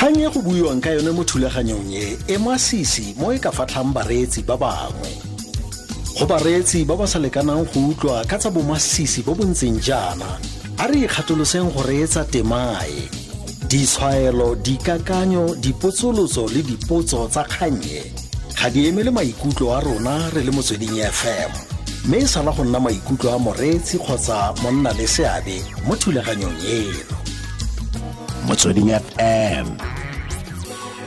Kgang e go buiwang ka yone mo thulaganyong e e masisi mo e ka fatlhang bareetsi ba bangwe. Go bareetsi ba ba sa lekanang go utlwa ka tsa bomasisi bo bo ntseng jaana, a re ikgatoloseng go reetsa temae. Ditshwaelo, dikakanyo, dipotsolotso le dipotso tsa kgannye ga di emele maikutlo a rona re le Motsweding FM, mme e sala go nna maikutlo a moreetsi kgotsa monna le seabe mo thulaganyong eno. Motsweding FM,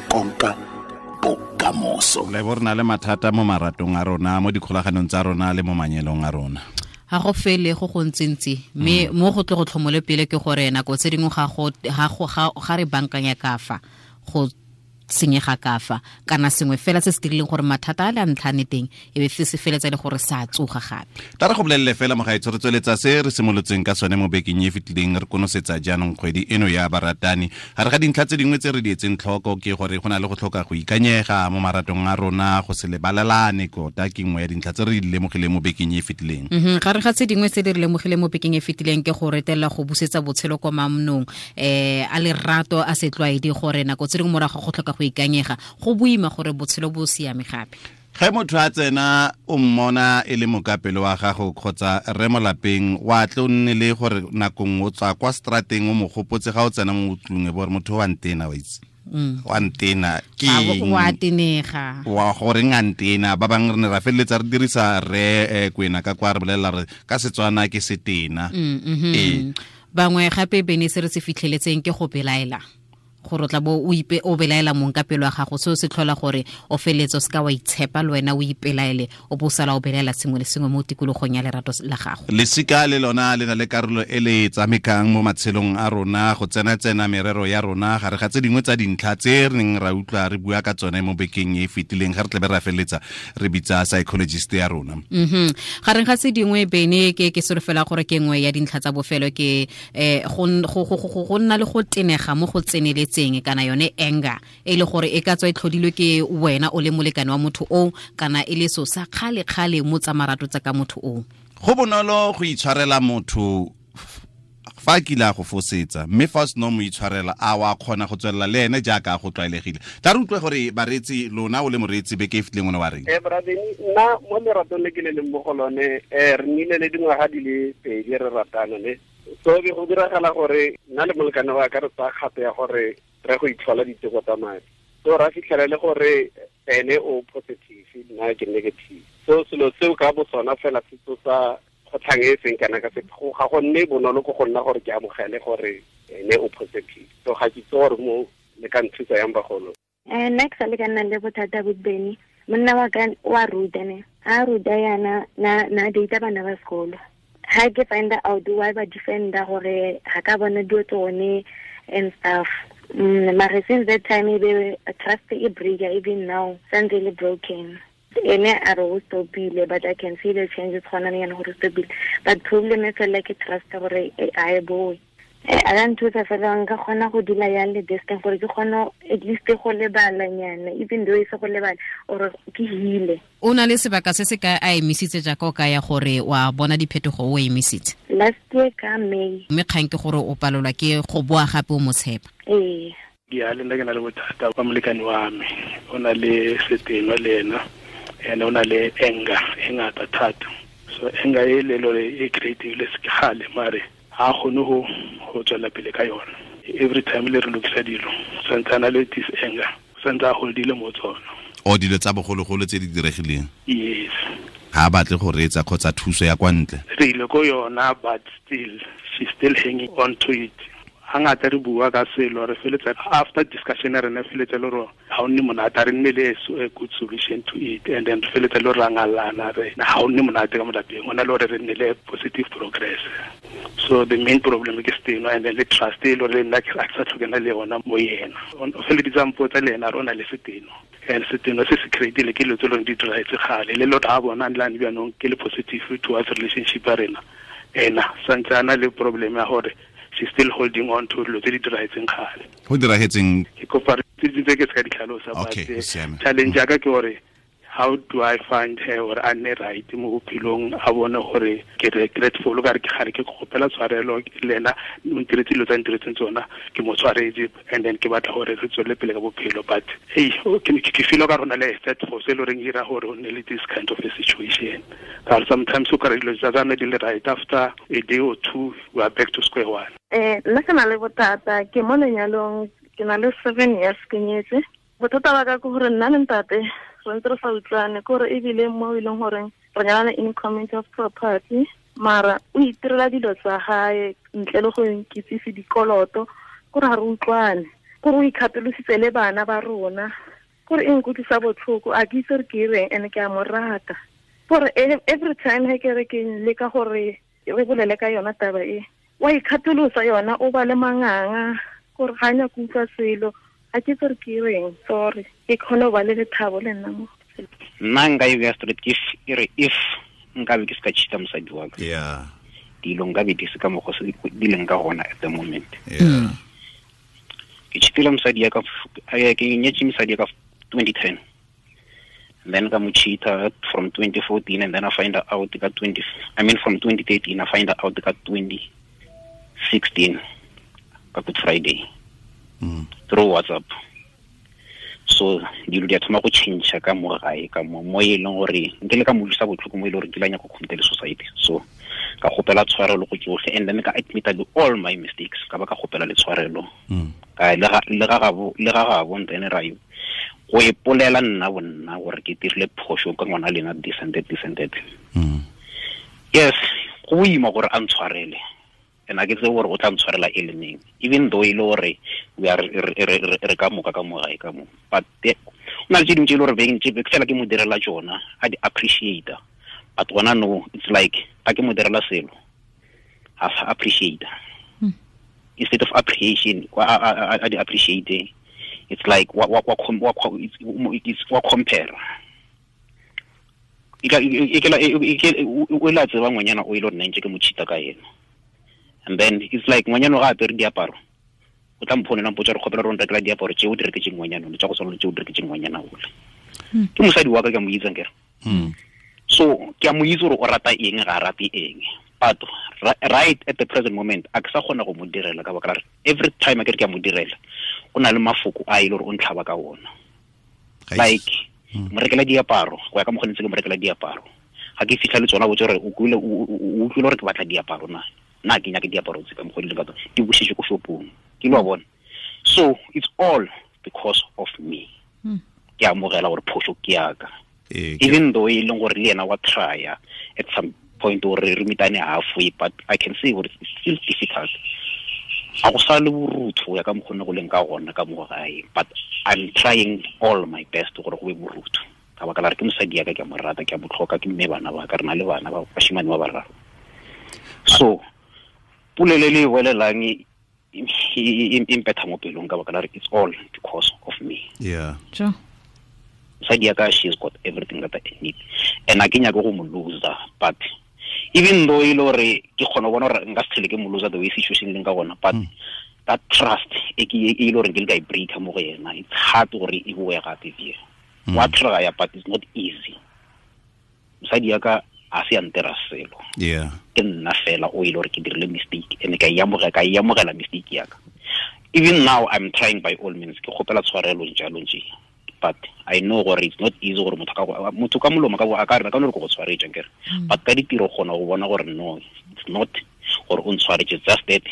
konka bokamoso. Le bo re na le mathata mo maratong a rona, mo dikgolaganong tsa rona le mo manyelong a rona. Ga go fele go go ntsintsi, mme mo go tle go tlhomole pele ke gore nako tse dingwe ga re bankanya ka fa go senyega ka fa, kana sengwe fela se se dirileng gore mathata a le a ntlhane teng e be se feletsa le gore sa tsoga gape. Tla re go bolelele fela mogaetsho, re tsweletsa se re simolotseng ka sone mo bekeng e fetileng, re konosetsa jaanong kgwedi eno ya baratani. Gare ga dintlha tse dingwe tse re di etseng tlhoko ke gore go na le go tlhoka go ikanyega mo maratong a rona, go se lebalelane tota ke nngwe ya dintlha tse re di lemogileng mo bekeng e fetileng. Gare ga tse dingwe tse di re lemogileng mo bekeng e fetileng ke go retelela go busetsa botshelo kwa mamnong, a lerato a setlwaedi, gore nako tse dingwe morago go tlhoka go ikanyega go boima gore botshelo bo siame gape. Ge motho a tsena o mmona e le mokapelo wa gago kgotsa rre mo lapeng, wa tle o nne le gore nako nngwe o tswa kwa strateng o mo gopotse ga o tsena mo tlung e bo gore motho wa ntena, wa itse. Wa ntena, ke Ga bo eng? wa tenega. Wa goreng a ntena? Ba bangwe re ne ra feleletsa re dirisa rre Kwena ka kwa re bolelela re ka Setswana ke setena. Bangwe gape bene se re se fitlheletseng ke go belaela, gore o tla bo o ipe, o belaela mong ka pelo ya gago, seo se tlhola gore o feletse o seka wa itshepa le wena, o ipelaele, o bo o sala o belaela sengwe le sengwe mo tikologong ya lerato la gago. Lesika le lona le na le karolo e le e tshamekang mo matshelong a rona, go tsena-tsena merero ya rona, gare ga tse dingwe tsa dintlha tse re neng ra utlwa re bua ka tsone mo bekeng e e fetileng, ga re tlabe ra feleletsa re bitsa psychologist ya rona. Gareng ga tse dingwe bene ke solofela gore ke nngwe ya dintlha tsa bofelo ke go nna le go tenega mo go tseneletseng, kana yone anger e le gore e ka tswa e tlhodilwe ke wena o le molekane wa motho o, kana e le so sa kgale-kgale mo tsa marato tsa ka motho o. Go bonolo go itshwarela motho fa a kile a go fosetsa, mme fa o seno mo itshwarela a wa kgona go tswelela le ene jaaka a go tlwaelegile. Tla re utlwe gore bareetsi, lona o le moreetsi beke e fetileng o ne wa reng? Bra Benny, nna mo leratong le ke le leng mo go lone, re nnile le dingwaga di le pedi re ratana, ne. So be go diragala gore nna le molekane wa ka re tsaya kgato ya gore re go itlhola diteko tsa madi. So ra fitlhela le gore ene o positive, nna ke negative. So selo seo ka bo sona fela se tsosa kgotlhang e seng kana ka sepe. Ga go nne bonolo ko go nna gore ke amogele gore ene o positive. So ga ke itse gore mo le ka nthusa yang bagolo. Nna ke sa le ka nna le bothata bo Benny. Monna wa ka wa ruta ne. Ha ruta yana, na data bana ba sekolo. Ha ke find out why ba defender gore ga ka bona dilo tsone and stuff. Mare since that time e be trust e breaker, even now santse le broken. Ene a re o stopile, but I can see the changes gona le yana gore o stopile. But problem e fela ke trust gore a e boe. A ka nthusa fela nka kgona go dula yang le this thing gore ke kgone at least go lebalanyana, even though e se go lebala or ke heal-e. O na le sebaka se se ka a emisitse jaaka o ka ya gore wa bona diphetogo o emisitse? Last year ka May. Mme kgang ke gore o palelwa ke go boa gape o mo tshepa. Ee. Ke a le nna ke na le bothata ba molekane wa me, o na le seteno le ena, and o na le anger e ngata thata. So anger e le lore e creative le se kgale, mare ha kgone go tswela pele ka yona. Every time le re lokisa dilo, santse a na le this anger, santse a holdile mo tsona. O dilo tsa bogologolo tse di diregileng? Yes. Ha a batle go reetsa kgotsa thuso ya kwa ntle? Re ile ko yona, but still she's still hanging on to it. Hangata re bua ka selo, re feletsa after discussion re ne feletsa le gore ha o nne monate, re nne le a good solution to it, and then re feletsa le gore ra ngalana, re ha o nne monate ka mo lapeng, o na le gore re nne le positive progress. So the main problem ke seteno, and then le trust e le gore nna ke sa tlhokana le yona mo yena. O feleditse a mpotsa le ena re o na le seteno, and seteno se se create-ile ke dilo tse leng di diragetse kgale, le lotho ha bona le lane bjanong ke le positive towards relationship ya rena, ena santse a na le problem ya gore she's still holding on to dilo tse di diragetseng kgale. Go diragetseng? Ke kopa tse dingwe tse ke se ka di tlhalosa, but, Okay, go siame. challenge ya ka ke gore How do I find her or a nne right mo bophelong, a bone gore ke regretful, ka re ke gare ke kgopela tshwarelo le ena o ntiretse dilo tsa ntiretseng tsona, ke mo tshwaretse, and then ke batla gore re tswelele pele ka bophelo. But hey, ke feel ka rona le third force e le goreng ira gore o nne le this kind of a situation. Ka sometimes o kry dilo tsa tsame di le right, after a day or two we are back to square one. Nna ke na le bothata, ke mo lenyalong, ke na le 7 years ke nyetse. Bothata ba ka ke gore nna le ntate re ntse re sa utlwane, ke gore ebile mo e leng goreng re nyalana in community of property, mara o itirela dilo tsa gae ntle le go nkitsise dikoloto, kore ga re utlwane, kore o ikgatolositse le bana ba rona, kore e nkutlwisa botlhoko, a ke itse gore ke ireng, and ke a mo rata. Gore every time he ke re ke leka gore re bolele ka yona taba e, wa ikgatolosa yona, o ba le manganga, gore ga a nyake utlwa selo, a ke itse gore ke ireng, sorry, ke kgone go ba le lethabo le nna mo. Nna nka e beya straight, ke re if nkabe ke se ka cheat-a mosadi wa ka, dilo nkabe di se ka mokgwa se di leng ka gona at the moment. Ke cheat-ile mosadi ya ka, ke nyetse mosadi ya ka 2010, and then ka mo cheat-a from 2014, and then I find out ka twenty, I mean from 2013 I find out ka 2016 ka Good Friday. Through WhatsApp. So dilo di a thoma go change ka mo gae, ka mo, mo e leng gore nke le ka mo utlwisa botlhoko mo e leng gore ke la nyaka go commit le society. So ka kgopela tshwarelo go tsotlhe, and then ka admit all my mistakes, ka ba ka kgopela le tshwarelo. Ka le ga, le ga gabo, le ga gabo ntene ra yo. Go ipolela nna bo nna gore ke dirile phoso ka ngwana lena this and that, this and that. Yes, go boima gore a ntshwarele. And I get the word o tla ntshwarela e le neng, even though e le gore we are re ka moka ka mo gae ka mo, but o na le tse dingwe tse e le gore beng tse fela ke mo direla tsona, a di appreciate, but gona no, it's like ga ke mo direla selo a sa appreciate. Instead of appreciation, a di appreciate, it's like wa, wa, wa, wa, wa, it's, it's wa compare. E ka, e, e, e, e, e, e, o la tseba ngwanyana o ile gore nna ntse ke mo cheat-a ka ena. And then it's like ngwanyana ga apere diaparo, o tla mphonela mpotsa re kgopela gore o nrekela diaparo tse o di reketseng ngwanyana ole, tsa go tshwana le tse o di reketseng ngwanyana ole. Ke mosadi wa ka, ke a mo itse akere. So ke a mo itse gore o rata eng, ga a rate eng. But right at the present moment, a ke sa kgona go mo direla ka baka la gore every time a ke re ke a mo direla, o na le mafoko a e le gore o ntlhaba ka ona. Ga e Like, mo rekela diaparo, go ya ka mokgwa ntse ke mo rekela diaparo. Ga ke fitlha le tsona, botse gore o kwile, o utlwile gore ke batla diaparo na? Nna ke nyake diaparo tse ka mokgwa di leng ka tsona, di busetse ko shopong. Ke lo bona. So it's all because of me. Ke amogela gore phoso ke ya ka. Even though e leng gore le yena wa try-a at some point gore re meetane halfway, but I can see gore it's still difficult. A go sa le borutho go ya ka mokgwa o ne go leng ka gona ka mo gae, but I'm trying all my best gore go be borutho. Ka baka la re ke mosadi ya ka, ke a mo rata, ke a mo tlhoka, ke mme bana ba ka, re na le bana ba bashimane ba bararo. So polelo e le e bolelang e mpetha mo pelong ka baka la re it's all because of me. Mosadi ya ka, she's got everything that I need, and a ke nyake go mo loser, but even though e le gore ke kgona go bona gore nka se tlhele ke mo loser the way situation e leng ka gona, but that trust e ke e le gore ke le ka e breaker mo go yena, it's hard gore e boe gape bje. Wa try, but it's not easy. Mosadi ya ka a se a ntera selo. Ke nna fela o e le gore ke dirile mistake, and ka e amogela, ka e amogela mistake ya ka. Even now I'm trying by all means, ke kgopela tshwarelo jalo nje, but I know gore it's not easy gore motho ka go, motho ka molomo ka bo, a ka re, ka no re ke go tshwaretse, akere. But ka ditiro kgona go bona gore no, it's not gore o ntshwaretse, just that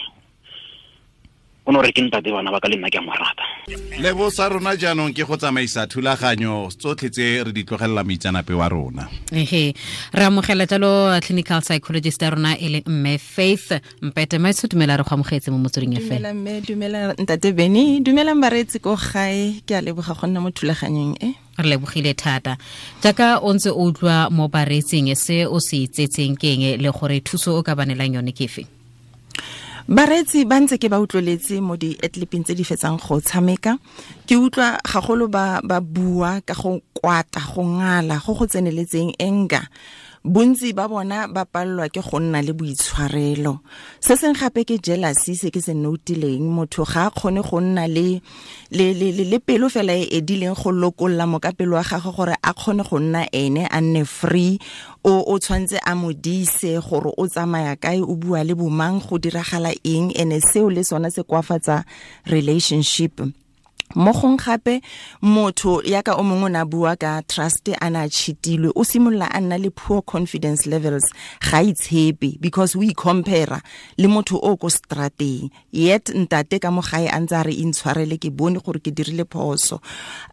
o no re ke ntate bana ba ka le nna ke a mo rata. Lebo sa rona jaanong ke go tsamaisa thulaganyo tsotlhe tse re di tlogelela moitseanape wa rona. Ehe, re amogela jalo clinical psychologist ya rona e leng mme Faith Mpete. Maitsho, dumela, re go amogetse mo Motsweding FM. Dumela mme, dumela ntate Benny, dumelang bareetsi ko gae, ke a leboga go nna mo thulaganyong e. Re lebogile thata. Jaaka o ntse o utlwa mo bareetsing, se o se itsetseng ke eng le gore thuso o ka ba neelang yone ke efe? Bareetsi ba ntse ke ba utlweletse mo di-clipping tse di fetsang go tshameka, ke utlwa gagolo ba bua ka go kwata, go ngala, go go tseneletseng anger. Bontsi ba bona ba palelwa ke go nna le boitshwarelo. Se seng gape ke jealousy, se ke se notileng, motho ga a kgone go nna le le le le pelo fela e edileng go lokolla mokapelo wa gagwe gore a kgone go nna ene a nne free. O tshwantse a modise gore o tsamaya kae, o bua le bomang, go diragala eng, ene seo le sona se kwafatsa relationship. Mo gong gape motho yaka o mongwe na bua ka trust a na cheatilwe, o simolola a nna le poor confidence levels, ga itshepe because we compare le motho o ko strateng, yet ntate ka mo gae a ntse a re intshwarele, ke bone gore ke dirile phoso.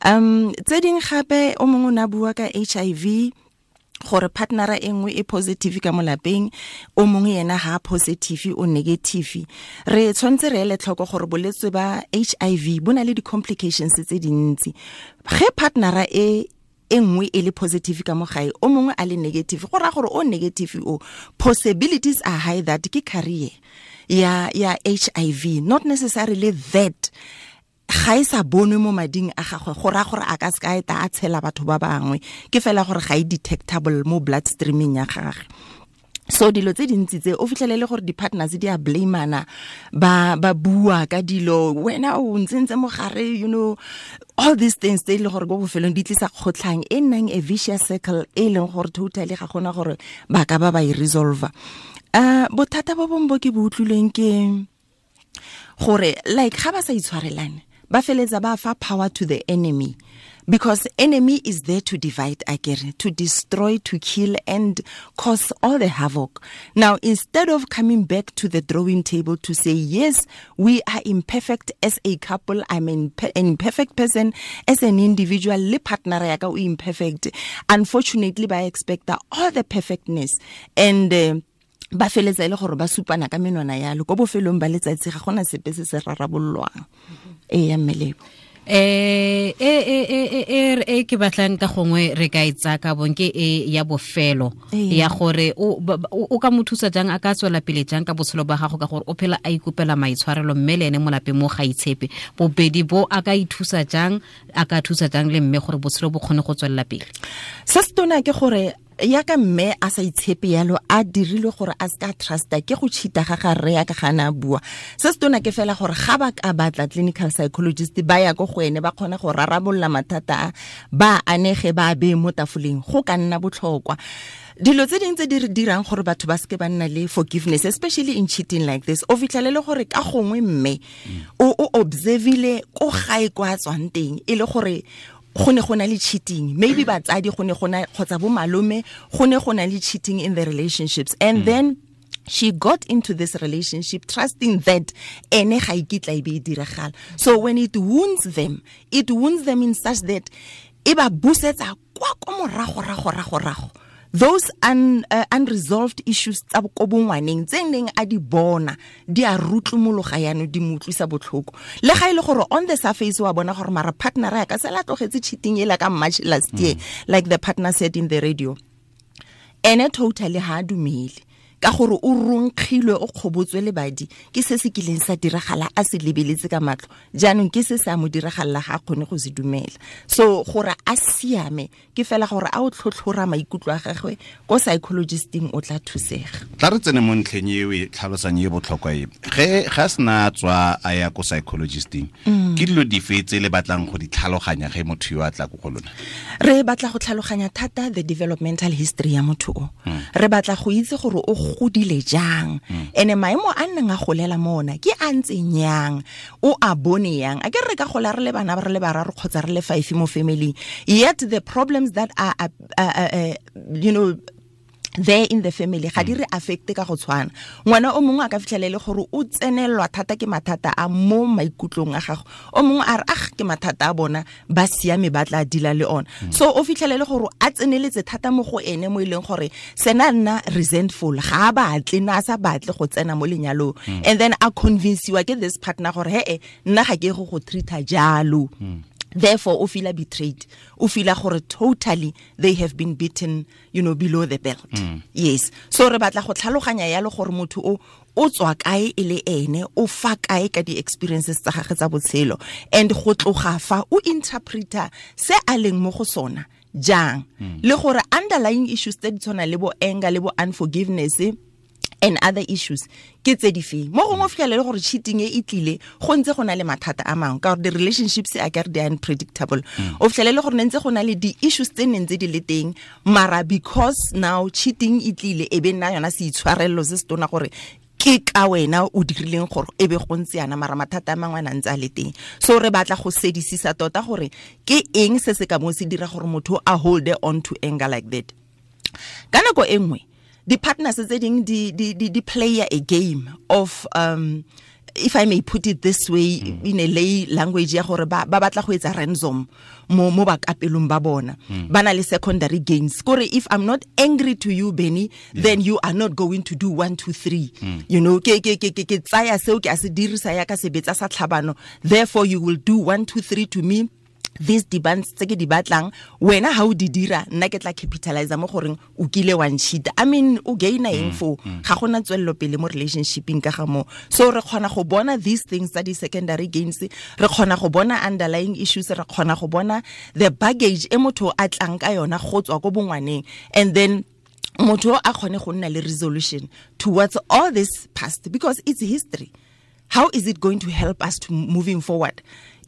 Tse ding gape o mongwe na bua ka HIV, gore partnera e nngwe e positive ka molapeng, o mongwe yena ha positive o negative. Re tshwanetse re ele tlhoko gore bolwetse ba HIV bo na le di-complications tse dintsi. Ge partnera e nngwe e le positive ka mo gae, o mongwe a le negative, go raya gore o negative o, possibilities are high that ke carrier ya HIV, not necessarily that ga e sa bonwe mo mading a gagwe, go raya gore a ka se ka eta a tshela batho ba bangwe, ke fela gore ga e detectable mo blood streaming ya gagwe. So dilo tse dintsi tse o fitlhelele gore di-partners di a blamana, ba bua ka dilo, wena o ntsentse mogare, you know, all these things tse e leng gore ko bofelong di tlisa kgotlhang e nnang a vicious circle e leng gore totally ga gona gore ba ka ba e resolver. Bothata bo bongwe bo ke bo utlwileng ke gore like ga ba sa itshwarelane, ba feletsa ba fa power to the enemy, because enemy is there to divide, akere, to destroy, to kill and cause all the havoc. Now, instead of coming back to the drawing table to say, yes, we are imperfect as a couple, I'm an imperfect person, as an individual, le partner ya ka o imperfect. Unfortunately, ba expect all the perfectness and ba feletsa ile gore ba supana ka menwana yalo, ko bofelong ba letsatsi ga gona sepe se se rarabollwang. E ya mmelebo e ke batlang ka gongwe re ka itsa ka bong ke e ya bofelo ya gore o ka mo thusa jang, a ka tswela pele jang ka botshelo ba gago, ka gore o phela a ikopela maitshwarelo mme le ene molapeng mo ga itshepe. Bobedi bo a ka ithusa jang, a ka thusa jang le mme gore botshelo bo kgone go tswelela pele. Se se tona ke gore ya ka mme a sa itshepe yalo, a dirilwe gore a ska trusta ke go cheata ga ga rre ya ka gana bua. Se se tona ke fela gore ga ba ka batla clinical psychologist ba ya go go ene, ba kgona go rarabolla mathata a ba anege ba be mo tafoleng, go ka nna botlhokwa. Dilo tse dingwe tse di re dirang gore batho ba seke ba nna le forgiveness, especially in cheating like this, o fitlhelele gore ka gongwe mme o observile ko gae kwa tswang teng e le gore go ne go na le cheating, maybe batsadi go ne go na kgotsa bo malome go ne go na le cheating in the relationships, and then she got into this relationship trusting that ene ga ikitla e be e diragala. So when it wounds them, it wounds them in such that e ba busetsa kwa ko morago rago rago rago. Those unresolved issues tsa ko bongwaneng tse neng a di bona di a rutlumologa yano, di mo utlwisa botlhoko. Le ga ile gore on the surface wa bona gore mara partner ya ka sela tlogetse cheating ela ka March last year, like the partner said in the radio, ene totally ha dumele ka gore o ronkgilwe, o kgobotswe le badi ke se se kileng sa diragala a se lebeletse ka matlho, jaanong ke se se a mo diragalla ga a kgone go se dumela. So gore a siame ke fela gore a o tlhotlhora maikutlo a gagwe ko psychologisting, o tla thusega. Tla re tsene mo ntlheng e o e tlhalosang e botlhokwa e, ge ga sena tswa a ya ko psychologisting, ke dilo dife tse le batlang go di tlhaloganya ge motho yo a tla ko go lona? Re batla go tlhaloganya thata the developmental history ya motho o. Re batla go itse gore o godile jang, ene maemo a nnang a golela mona ke a ntseng yang, o a bone yang. A ke re ka gola re le bana ba re le bararo kgotsa re le 5 mo family, yet the problems that are you know there in the family ga di re affecte ka go tshwana. Ngwana o mongwe a ka fitlhelele gore o tsenelwa thata ke mathata a mo maikutlong a gago, o mongwe a re ah ke mathata a bona ba siame ba tla dila le ona. So o fitlhelele gore a tseneletse thata mo go ene mo e leng gore sena nna resentful, ga a batle na a sa batle go tsena mo lenyalong, and then a convince-iwa ke this partner gore he nna ga ke go treat-a jalo. Therefore o feel betrayed, o feel gore totally they have been beaten, you know, below the belt. Yes. So re batla go tlhaloganya yalo gore motho o tswa kae e le ene, o fa kae ka di experiences tsa gagwe tsa botshelo, and go tloga fa o interpreter se a leng mo go sona jang le gore underlying issues tse di tshwana le bo anger le bo unforgiveness and other issues ke tse di feng. Mo gongwe o fitlhele le gore cheating e e tlile go ntse go na le mathata a mangwe, ka gore di-relationships a kare di unpredictable. O fitlhele le gore ne ntse go na le di-issues tse neng tse di le teng, mara because now cheating e tlile e be nna yona seitshwarelelo se se tona gore ke ka wena o dirileng gore e be go ntse yana, mara mathata a mangwe a na ntse a le teng. So re batla go sedisisa tota gore ke eng se se ka mo se dira gore motho a hold on to anger like that. Ka nako e nngwe di-partners tse ding di play a game of if I may put it this way, in a lay language ya gore ba batla go etsa ransom mo bakapelong ba bona. Ba na le secondary gains. Kore if I'm not angry to you, Benny, then you are not going to do 1 2 3. You know, ke tsaya seo ke a se dirisa ya ka sebetsa sa tlhabano. Therefore you will do 1 2 3 to me. These demands tse ke di batlang, wena ha o di dira, nna ke tla capitalize mo goreng o kile wa ncheat. I mean, o gaina eng fo? Ga gona tswelelo pele mo relationshipeng ka ga mo. So re kgona go bona these things tsa di secondary gains, re kgona go bona underlying issues, re kgona go bona the baggage e motho a tlang ka yona go tswa ko bongwaneng, and then motho a kgone go nna le resolution towards all this past, because it's history. How is it going to help us to moving forward?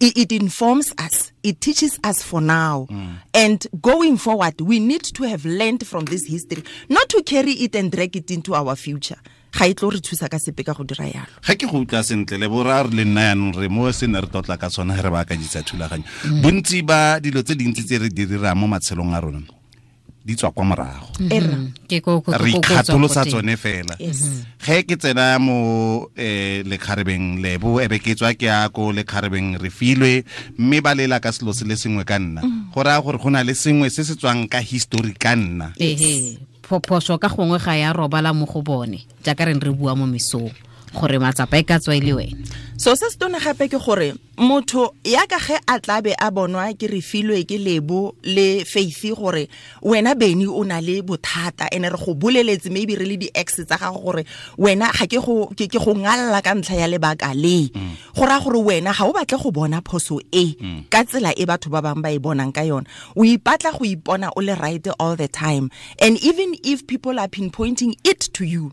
It informs us. It teaches us for now. And going forward, we need to have learned from this history, not to carry it and drag it into our future. Ga e tlo re thusa ka sepe ka go dira yalo. Ga ke go utlwa sentle le borra re le nna yanong re mo se ne re tlotla ka tsona re ba akanyetsa thulaganyo. Bontsi ba dilo tse dintsi tse re di dirang mo matshelong a rona di tswa kwa morago. Re ikgatolosa tsone fela. Ge ke tsena mo lekgarebeng Lebo, ebe ke tswa ke ya ko lekgarebeng Refilwe, mme ba lela ka selo se le sengwe ka nna. Go raya gore go na le sengwe se se tswang ka history ka nna. Phoso ka gongwe ga ya robala mo go bone, jaaka re re bua mo mesong gore matsapa e ka tswa e le wena. So se se tona gape ke gore motho ya ka ge a tlabe a bonwa ke Refilwe ke Lebo le Faith gore wena Benny o na le bothata, ene re go boleletse maybe re le di-ex tsa gago gore wena ga ke go ngalla ka ntlha ya lebaka le. Go raya gore wena ga o batle go bona phoso e ka tsela e batho ba bangwe ba e bonang ka yona. O ipatla go ipona o le right all the time, and even if people are pinpointing it to you,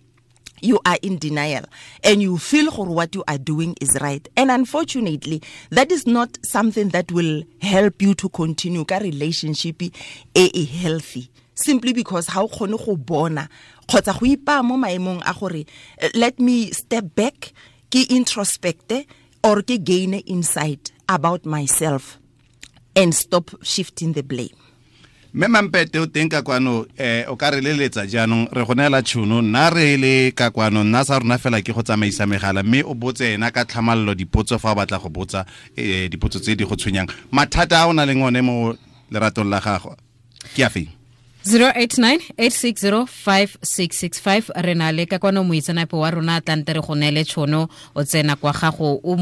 you are in denial and you feel for what you are doing is right. And unfortunately, that is not something that will help you to continue ka relationship e healthy. Simply because how kgone go bona kgotsa go ipa mo maemong a gore let me step back, ke introspect or ke gain insight about myself and stop shifting the blame. Mme Mampete o teng ka kwano, o ka re leletsa jaanong re go neela tšhono, nna re le ka kwano, nna sa rona fela ke go tsamaisa megala, mme o botse ena ka tlhamallo dipotso fa o batla go botsa dipotso tse di go tshwenyang. Mathata a o na leng one mo leratong la gago ke a feng? 089-860-5665. Re na le ka kwano moitseanape wa rona tlante re go neele tšhono, o tsena kwa gago o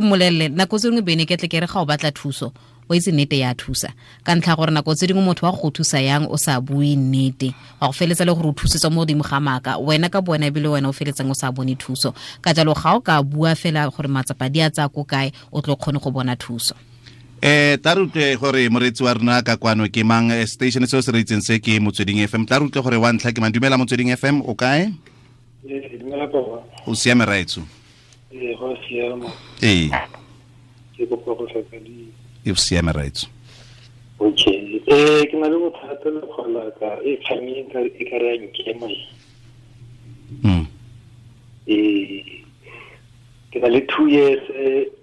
mmolelele. Nako tse dingwe bene ke tle ke re ga o batla thuso, o itse nnete ya thusa, ka ntlha gore nako tse dingwe motho wa go thusa yang o sa bue nnete, wa go feletsa le gore o thusetswa mo godimo ga maaka, wena ka bona ebile wena o feletsang o sa bone thuso. Ka jalo ga o ka bua fela gore matsapa di a tsaya ko kae, o tlo kgone go bona thuso. Tla re utlwe gore moreetsi wa rona ka kwano ke mang, station seo se re itseng se ke Motsweding FM. Tla re utlwe gore wa ntlha ke mang. Dumela Motsweding FM, o kae? Dumela papa. O siame raetso? Go siama. Ee. Ke kopa go tlhaka di. E siame raetso. Okay. Ke na le bothata le kgola ka e kgang e ka re ya nkema. Ke na le 2 years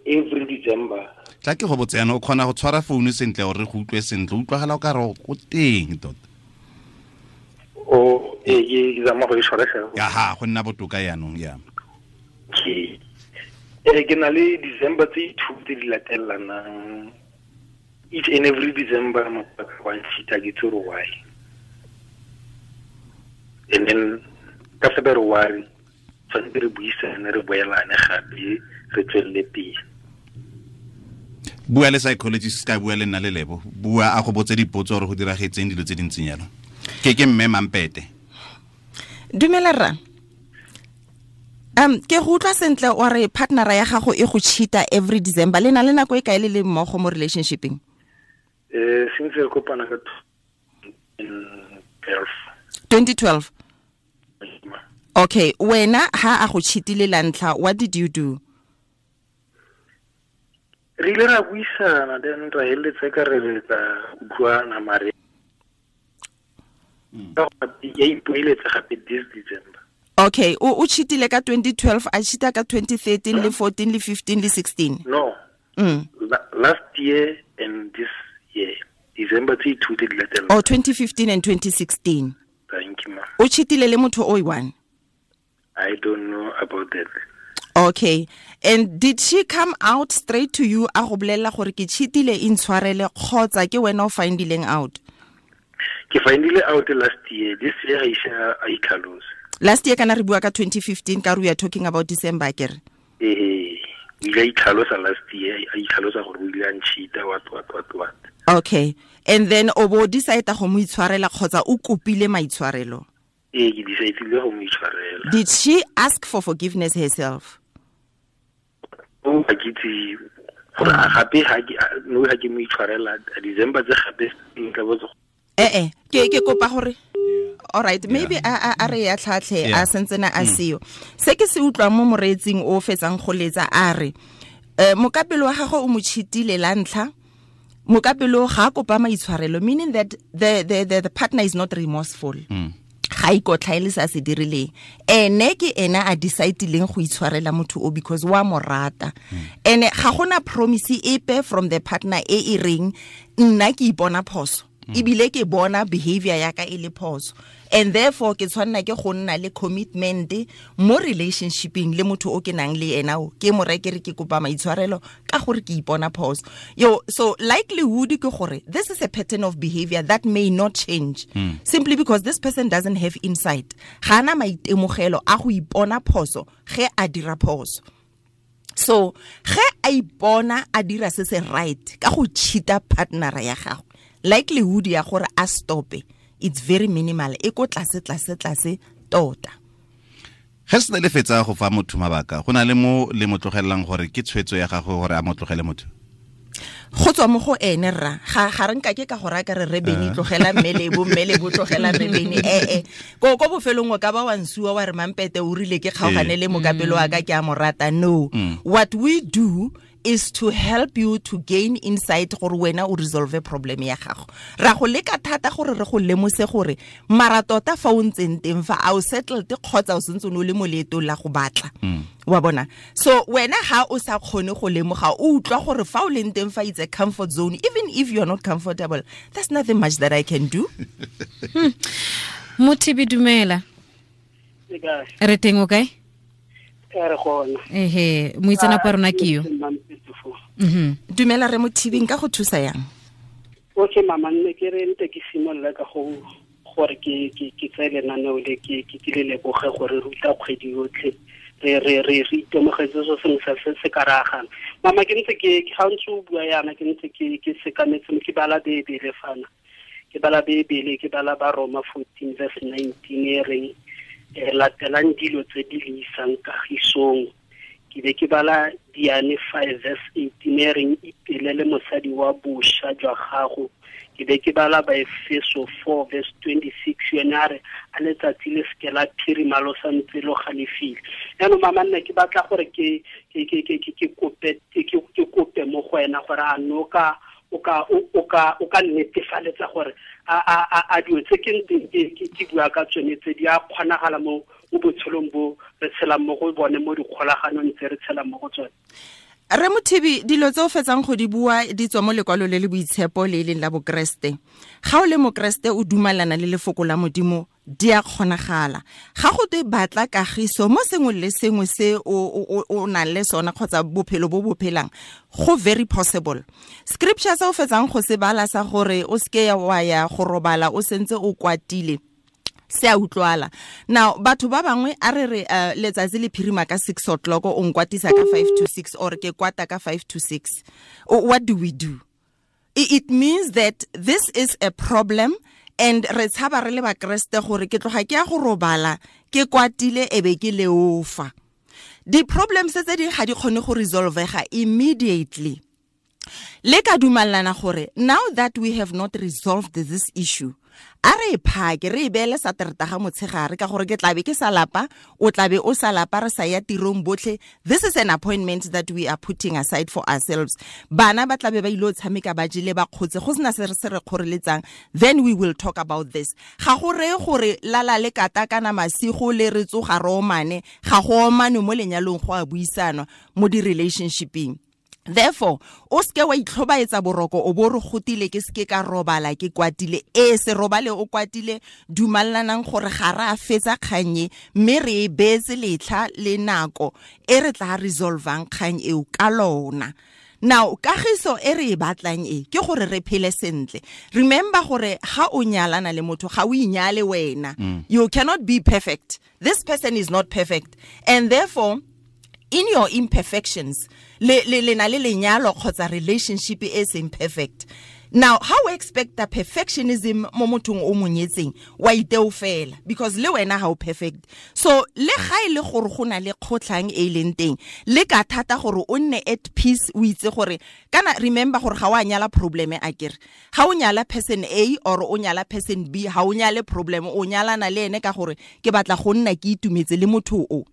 every December. Tla ke go botse yana, o kgona go tshwara founu sentle gore re go utlwe sentle, o utlwagala o ka re o teng tota. O ke zama go e tshwara fela. Ya ha, go nna botoka yanong ya. Okay. Ke na le December tse 2 tse di latelanang. Each and every December motho wa nchita ke tsoro why. And then ka February tshwanetse re buisane re boelane gape re tswelele pele. Bua le psychologist, ka bua le nna le Lebo, bua a go botse dipotso gore go diragetseng dilo tse dintseng yalo. Ke mme Mampete. Dumela rra. Ke go utlwa sentle o re partnera ya gago e go cheata every December. Le na le nako e kae le le mmogo mo relationshipeng? Since re kopana ka 2012. 2012. Okay, wena ha a go cheatile la ntlha, what did you do? Re ile ra buisana, then ra heletsa ka re re tla utlwana, mare ya ipoeletsa gape this December. Okay, o cheatile ka 2012, a cheata ka 2013 le 14 le 15 le 16. No. Last year and this year, December tse two tse di latelang. Oh, 2015 and 2016. Thank you, ma. O cheatile le motho o one? I don't know about that. Okay. And did she come out straight to you a go bolela gore ke cheatile, intshwarele, kgotsa ke wena o findileng out? Ke findile out last year. This year ga ise a itlhalose. Last year kana re bua ka 2015, ka re we are talking about December, akere? Ee, o ile a itlhalosa last year, a itlhalosa gore o ile a ncheata, what what what what. Okay. And then o bo decide go mo itshwarela kgotsa o kopile maitshwarelo? Ee, ke decidile go mo itshwarela. Did she ask for forgiveness herself? O ga ke itse gore a gape ga ke no ga ke mo itshwarela December tse gape nka botsa. Eh ke kopa gore, all right, maybe a re ya tlhatlhe a sentsena a seo. Se ke se utlwang mo moreetsing o fetsang go letsa, a re mokapelo wa gagwe o mo cheatile la ntlha, mokapelo ga a kopa maitshwarelo, meaning that the partner is not remorseful. Ga ikotlhaele se a se dirileng, ene ke ena a decidileng go itshwarela motho o because wa mo rata. Ene ga gona promise epe from the partner e e reng nna ke ipona phoso, ebile ke bona behavior ya ka e le phoso, and therefore ke tshwanna ke go nna le commitment mo relationshipeng le motho o ke nang le ena, o ke mo rekere ke kopa maitshwarelo ka gore ke ipona phoso. Yo, so likelihood ke gore this is a pattern of behavior that may not change, simply because this person doesn't have insight. Ga ana maitemogelo a go ipona phoso ge a dira phoso. So ge a ipona a dira se se right ka go cheata partner ya gagwe, likelihood ya gore a stope it's very minimal, e ko tlase tlase tlase tota. Ge se le fetsa go fa motho mabaka, go na le mo le mo tlogellang gore ke tshwetso ya gagwe gore a mo tlogele motho? Go tswa mo go ene rra, ga re nka ke ka gore a ka re re Bene tlogela mmelebo, mmelebo tlogela re Bene. Ko bofelong o ka ba wa nsuwa wa re Mampete o rile ke kgaogane le mokapelo wa ka ke a mo rata. No. What we do is to help you to gain insight gore wena o resolve problem ya gago. Ra go leka thata gore re go lemose gore mara tota fa o ntseng teng fa a o settled kgotsa o sentse o le mo leetong la go batla. Wa bona? So wena ha o sa kgone go lemoga, o utlwa gore fa o leng teng fa it's a comfort zone, even if you are not comfortable, there's nothing much that I can do. Mothibi, dumela. Re teng o kae? Re gona. Ehe, moitseanape wa rona ke yo. Dumela re Mothibi, nka go thusa yang? Okay mama, nne ke re nte ke simolola ka go gore ke tseye lenaneo le ke le leboge gore ruta kgwedi yotlhe. Re re re re itemogetse so sengwe sa se se ka ragang. Mama, ke ntse ke ga ntse o bua yana, ke ntse ke sekametse ke bala Bebele fana. Ke bala Bebele, ke bala ba Roma 14 verse 19 e reng latelang dilo tse di le isang kagisong. Ke be ke bala Diane 5 verse 18 e reng ipelele mosadi wa bosha jwa gago. Ke be ke bala Baefeso 4 verse 26 yone a re a letsatsi le seke la phirima lo sa ntse lo galefile. Jaanong mama, nna ke batla gore ke kope mo go wena gore a no ka o ka netefaletsa gore a dilo tse ke ntseng ke bua ka tsone tse di a kgonagala mo botshelong bo re tshelang mo go bone, mo dikgolaganong tse re tshelang mo go tsone. Re Mothibi, dilo tse o fetsang go di bua di tswa mo lekwalo le le boitshepo le e leng la Bokreste. Ga o le Mokreste o dumalana le lefoko la Modimo, di a kgonagala. Ga go twe batla kagiso mo sengwe le sengwe se o nang le sona kgotsa bophelo bo bo phelang, go very possible. Scripture se o fetsang go se bala sa gore o seke wa ya go robala o sentse o kwatile, se a utlwala. Now batho ba bangwe a re re letsatsi le phirima ka 6 o'clock, o nkwatisa ka 5 to 6 or ke kwata ka 5 to 6. What do we do? It means that this is a problem, and re tshaba re le bakreste gore ke tloga ke ya go robala ke kwatile ebe ke leofa. Di problems tse ding ga di kgone go resolvega immediately. Le ka dumalana gore now that we have not resolved this issue, a re phake re beele Sateretaga motshegare ka gore ke tlabe ke sa lapa, o tlabe o sa lapa, re sa ya tirong botlhe. This is an appointment that we are putting aside for ourselves. Bana ba tlabe ba ile tshameka ba jele ba kgotse, go sena se re se re kgoreletsang, then we will talk about this. Ga go reye gore lala le kata kana masigo le re tsoga re omane, ga go omane mo lenyalong, go a buisanwa mo di-relationshipeng. Therefore, o seke wa itlhobaetsa boroko o bo re gotile ke seke ka robala ke kwatile. E se robale o kwatile, dumallanang gore ga re a fetsa kgang e, mme re e beetse letlha le nako e re tla resolvang kgang eo ka lona. Now, kagiso e re e batlang e ke gore re phele sentle. Remember gore ga o nyalana le motho, ga o inyale wena. You cannot be perfect. This person is not perfect. And therefore, in your imperfections, le le na le lenyalo kgotsa relationship e seng perfect. Now, how we expect the perfectionism mo mothong o monyetseng, wa iteo fela, because le wena ha o perfect. So le ga e le gore go na le kgotlhang e leng teng, le ka thata gore o nne at peace, o itse gore kana remember gore ga wa nyala problem a kere. Ga o nyala person A or o nyala person B, ga o nyale problem, o nyalana le ene ka gore ke batla go nna ke itumetse le motho o.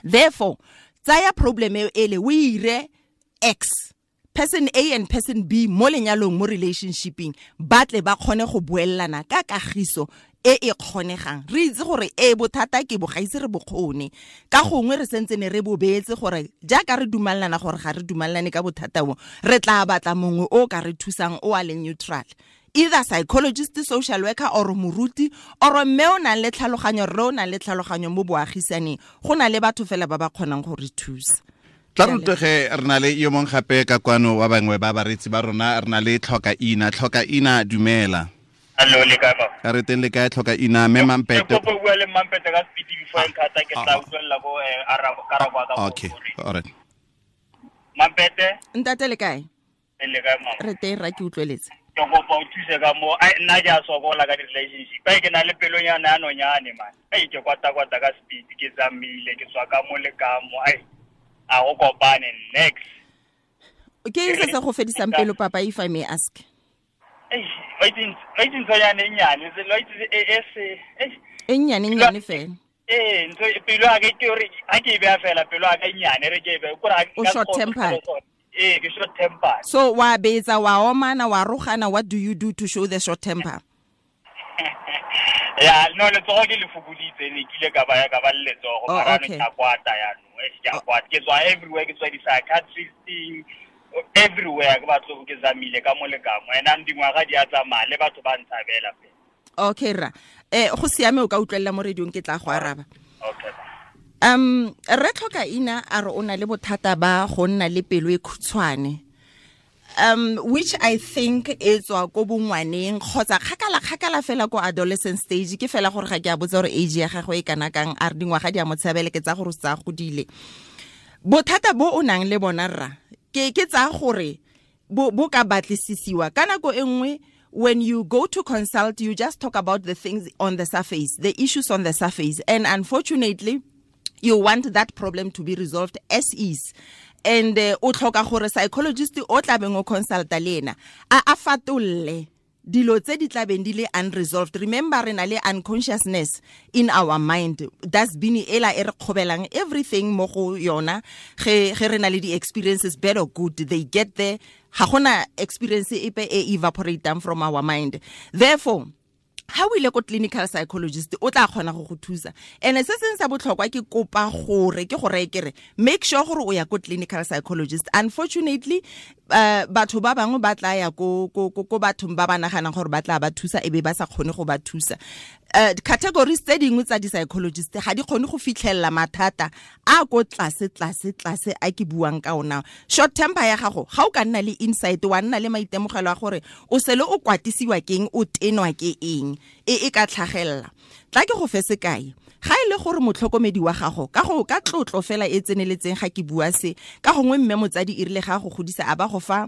Therefore, tsaya problem e le o ire X, person A and person B mo lenyalong, mo relationshipeng, ba tle ba kgone go buellana ka kagiso e e kgonegang. Re itse gore e bothata ke bo gaise re bokgone, ka gongwe re sentse ne re bo beetse gore jaaka re dumellana gore ga re dumellane ka bothata bo, re tla batla mongwe o ka re thusang o a leng neutral, either psychologist, social worker or moruti or mme o nang le tlhaloganyo, rre o nang le tlhaloganyo mo boagisaneng. Go na le batho fela ba ba kgonang go re thusa. Tla rutege re na le yo mongwe gape ka kwano wa bangwe ba baretsi ba rona, re na le Tlhoka Ina. Tlhoka Ina, dumela. Hello, le kae ba? Re teng, le kae Tlhoka Ina? Mme Mampete. Ke kopo bua le Mampete ka speed before nkhata, ke tla utlwella ko arabo karabo ka. Okay, all right. Mampete. Ntate le kae? Le kae mama? Re teng ra, ke utlweletse. Ke kopa o thuse ka mo, ai nna ke a sokola ka di-relationship. Ai ke na le pelonyana ya nonyane man. Ai ke kwata-kwata ka speed, ke tsamaile, ke tswa ka mo le ka mo. Ai a go kopane next. Ke eng se se go fedisang pelo papa, if I may ask? Ei, wa itse nthonyane e nnyane, wa itse e se, e nnyane nnyane fela. Eh, ntho pelo ya ka ke hore ha ke e beha fela, pelo ya ka e nnyane, re ke e behe, kore ha O short tempered. Eh, ke short temper. So wa betsa, wa omana, wa rogana, what do you do to show the short temper? Ya, no, letsogo ke le fokoditse, ne ke ile ka ba ya ka ba le letsogo, mara ne ke kwata ya no, e ke kwata. Ke tswa everywhere, ke tswa di-psychiatristing, everywhere ke batlo ke zamile ka mo le ka mo. Ena dingwaga di a tsamaya le batho ba ntshabela fela. Okay ra. Go siame, o ka utlwella mo radiong, ke tla go araba. Okay. Re Tlhoka Ina a re o na le bothata ba go nna le pelo e khutshwane, which I think e tswa ko bongwaneng kgotsa kgakala kgakala fela ko adolescent stage. Ke fela gore ga ke a botsa gore age ya gagwe e kana kang, a re dingwaga di a mo tshabele, ke tsa gore o tsa godile. Bothata bo o nang le bona rra, ke tsa gore bo ka batlisisiwa ka nako e nngwe. When you go to consult, you just talk about the things on the surface, the issues on the surface, and unfortunately you want that problem to be resolved as is. And o tlhoka gore psychologist o tlabeng o consulta le ena a fatolle dilo tse di tlabeng di le unresolved. Remember, re na le unconsciousness in our mind. Dustbin ela e re kgobelang everything mo go yona. Ge re na le di-experiences, bad or good, they get there. Ga gona experience epe e evaporatang from our mind. Therefore, ha o ile ko clinical psychologist, o tla kgona go go thusa. And se seng sa botlhokwa ke kopa gore ke gore ke re make sure gore o ya ko clinical psychologist. Unfortunately, batho ba bangwe ba tla ya ko bathong ba ba naganang gore ba tla ba thusa, e be ba sa kgone go ba thusa. Categories tse dingwe tsa di-psychologist ga di kgone go fitlhelela mathata a ko tlase tlase tlase a ke buang ka ona. Short temper ya gago, ga o ka nna le insight, wa nna le maitemogelo a gore o sele o kwatisiwa keng, o tenwa ke eng, e ka tlhagelela. Tla ke go fe sekai. Ga e le gore motlhokomedi wa gago ka go ka tlotlo fela e tseneletseng, ga ke bua se ka gongwe mme motsadi e rile ga go godisa a ba go fa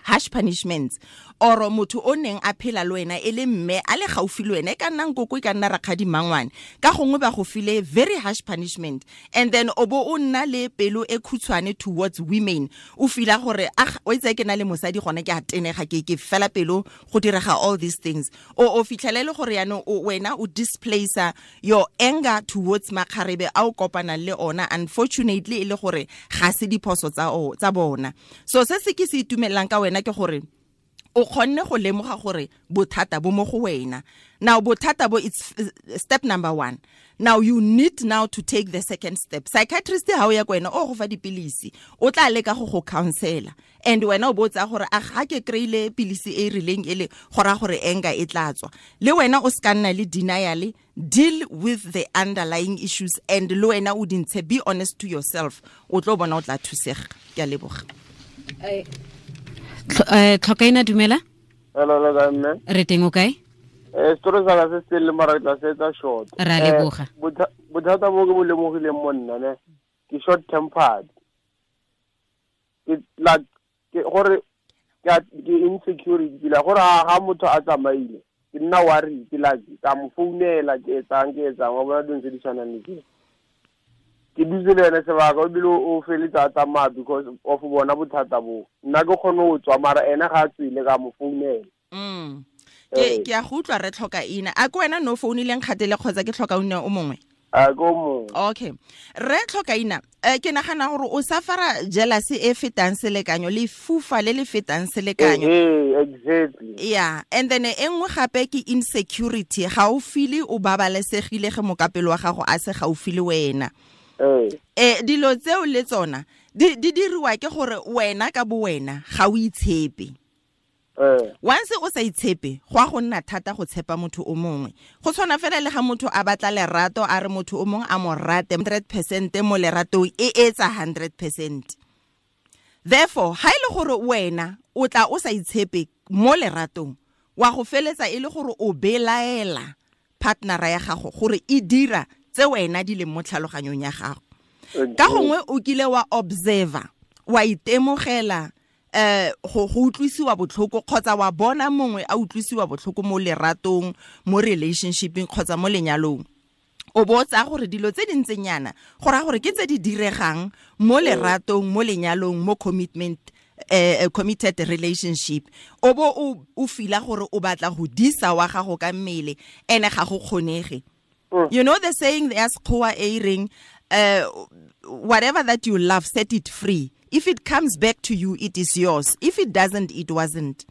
Harsh punishments or motho o neng a phela le wena e le mme a le gaufi le wena, e ka nna nkoko, e ka nna rakgadi mangwane, ka gongwe ba go file very harsh punishment, and then o bo o nna le pelo e khutshwane towards women, o fila gore ah, o itse ke na le mosadi gone ke a tenega, ke fela pelo go direga all these things. O fitlhelele gore yaanong wena o displacer your anger towards makgarebe a o kopanang le ona, unfortunately e le gore ga se diphoso tsa bona. So se se ke se itumelang ka wena ke gore o kgonne go lemoga gore bothata bo mo go wena. Now bothata bo, it's step number 1. Now you need now to take the second step. Psychiatrist ha o ya ko wena o go fa dipilisi, o tla leka go counsela, and wena o botsa gore a ga ke kreile pilisi e rileng ele gora gore anger e tla tswa. Le wena o ska nna le denial, deal with the underlying issues, and le wena o dintshe, be honest to yourself, o tlo bona o tla thusega. Ke a leboga. Tlhokaina, dumela. Hello, le kae mme? Re teng, o kae? Story sa ka se se le mara tla se etsa short. Ra leboga. Bothata bo ke bo lemogileng mo nna ne, ke short tempered. Ke like ke gore ke insecurity, la gore ha motho a tsamaile ke nna worry, ke like ka mo founela, ke etsang wa bona dilo tse di tshwanang le tse. Ke dutse le ene sebaka, o bile o feletsa a tsamaya because of bona bothata bo. Nna ke kgone go tswa, mara ene ga a tswile ka mo founela. Ke a go utlwa re tlhoka ina. A ke wena no founileng kgatele kgotsa ke tlhoka ina o mongwe? A ke o mongwe. Okay. Re tlhoka ina. Ke nagana gore o safara jealousy e fetang selekanyo, le fufa le le fetang selekanyo. Exactly. Yeah, and then e nngwe gape ke insecurity. Ga o feel o babalesegile ge mokapelo wa gago a se gaufi le wena. Dilo tseo le tsona di diriwa ke gore wena ka bo wena ga o itshepe. Once o sa itshepe, go a go nna thata go tshepa motho o mongwe. Go tshwana fela le ga motho a batla lerato, a re motho o mongwe a mo rate 100% mo leratong, e etsa 100%. Therefore, ha ile gore wena o tla o sa itshepe mo leratong, wa go feletsa e le gore o belaela partnera ya gago gore e dira tse wena di leng mo tlhaloganyong ya gago. Ka gongwe o kile wa observer, wa itemogela go utlwisiwa botlhoko, kgotsa wa bona mongwe a utlwisiwa botlhoko mo leratong, mo relationshipeng kgotsa mo lenyalong. O botsa gore dilo tse di ntseng yana go raya gore ke tse di diregang mo leratong, mo lenyalong, mo commitment, committed relationship. O bo o fila gore o batla go disa wa gago ka mmele, ene ga go kgonege. You know the saying, the Sekgowa e reng, whatever that you love, set it free. If it comes back to you, it is yours. If it doesn't, it wasn't.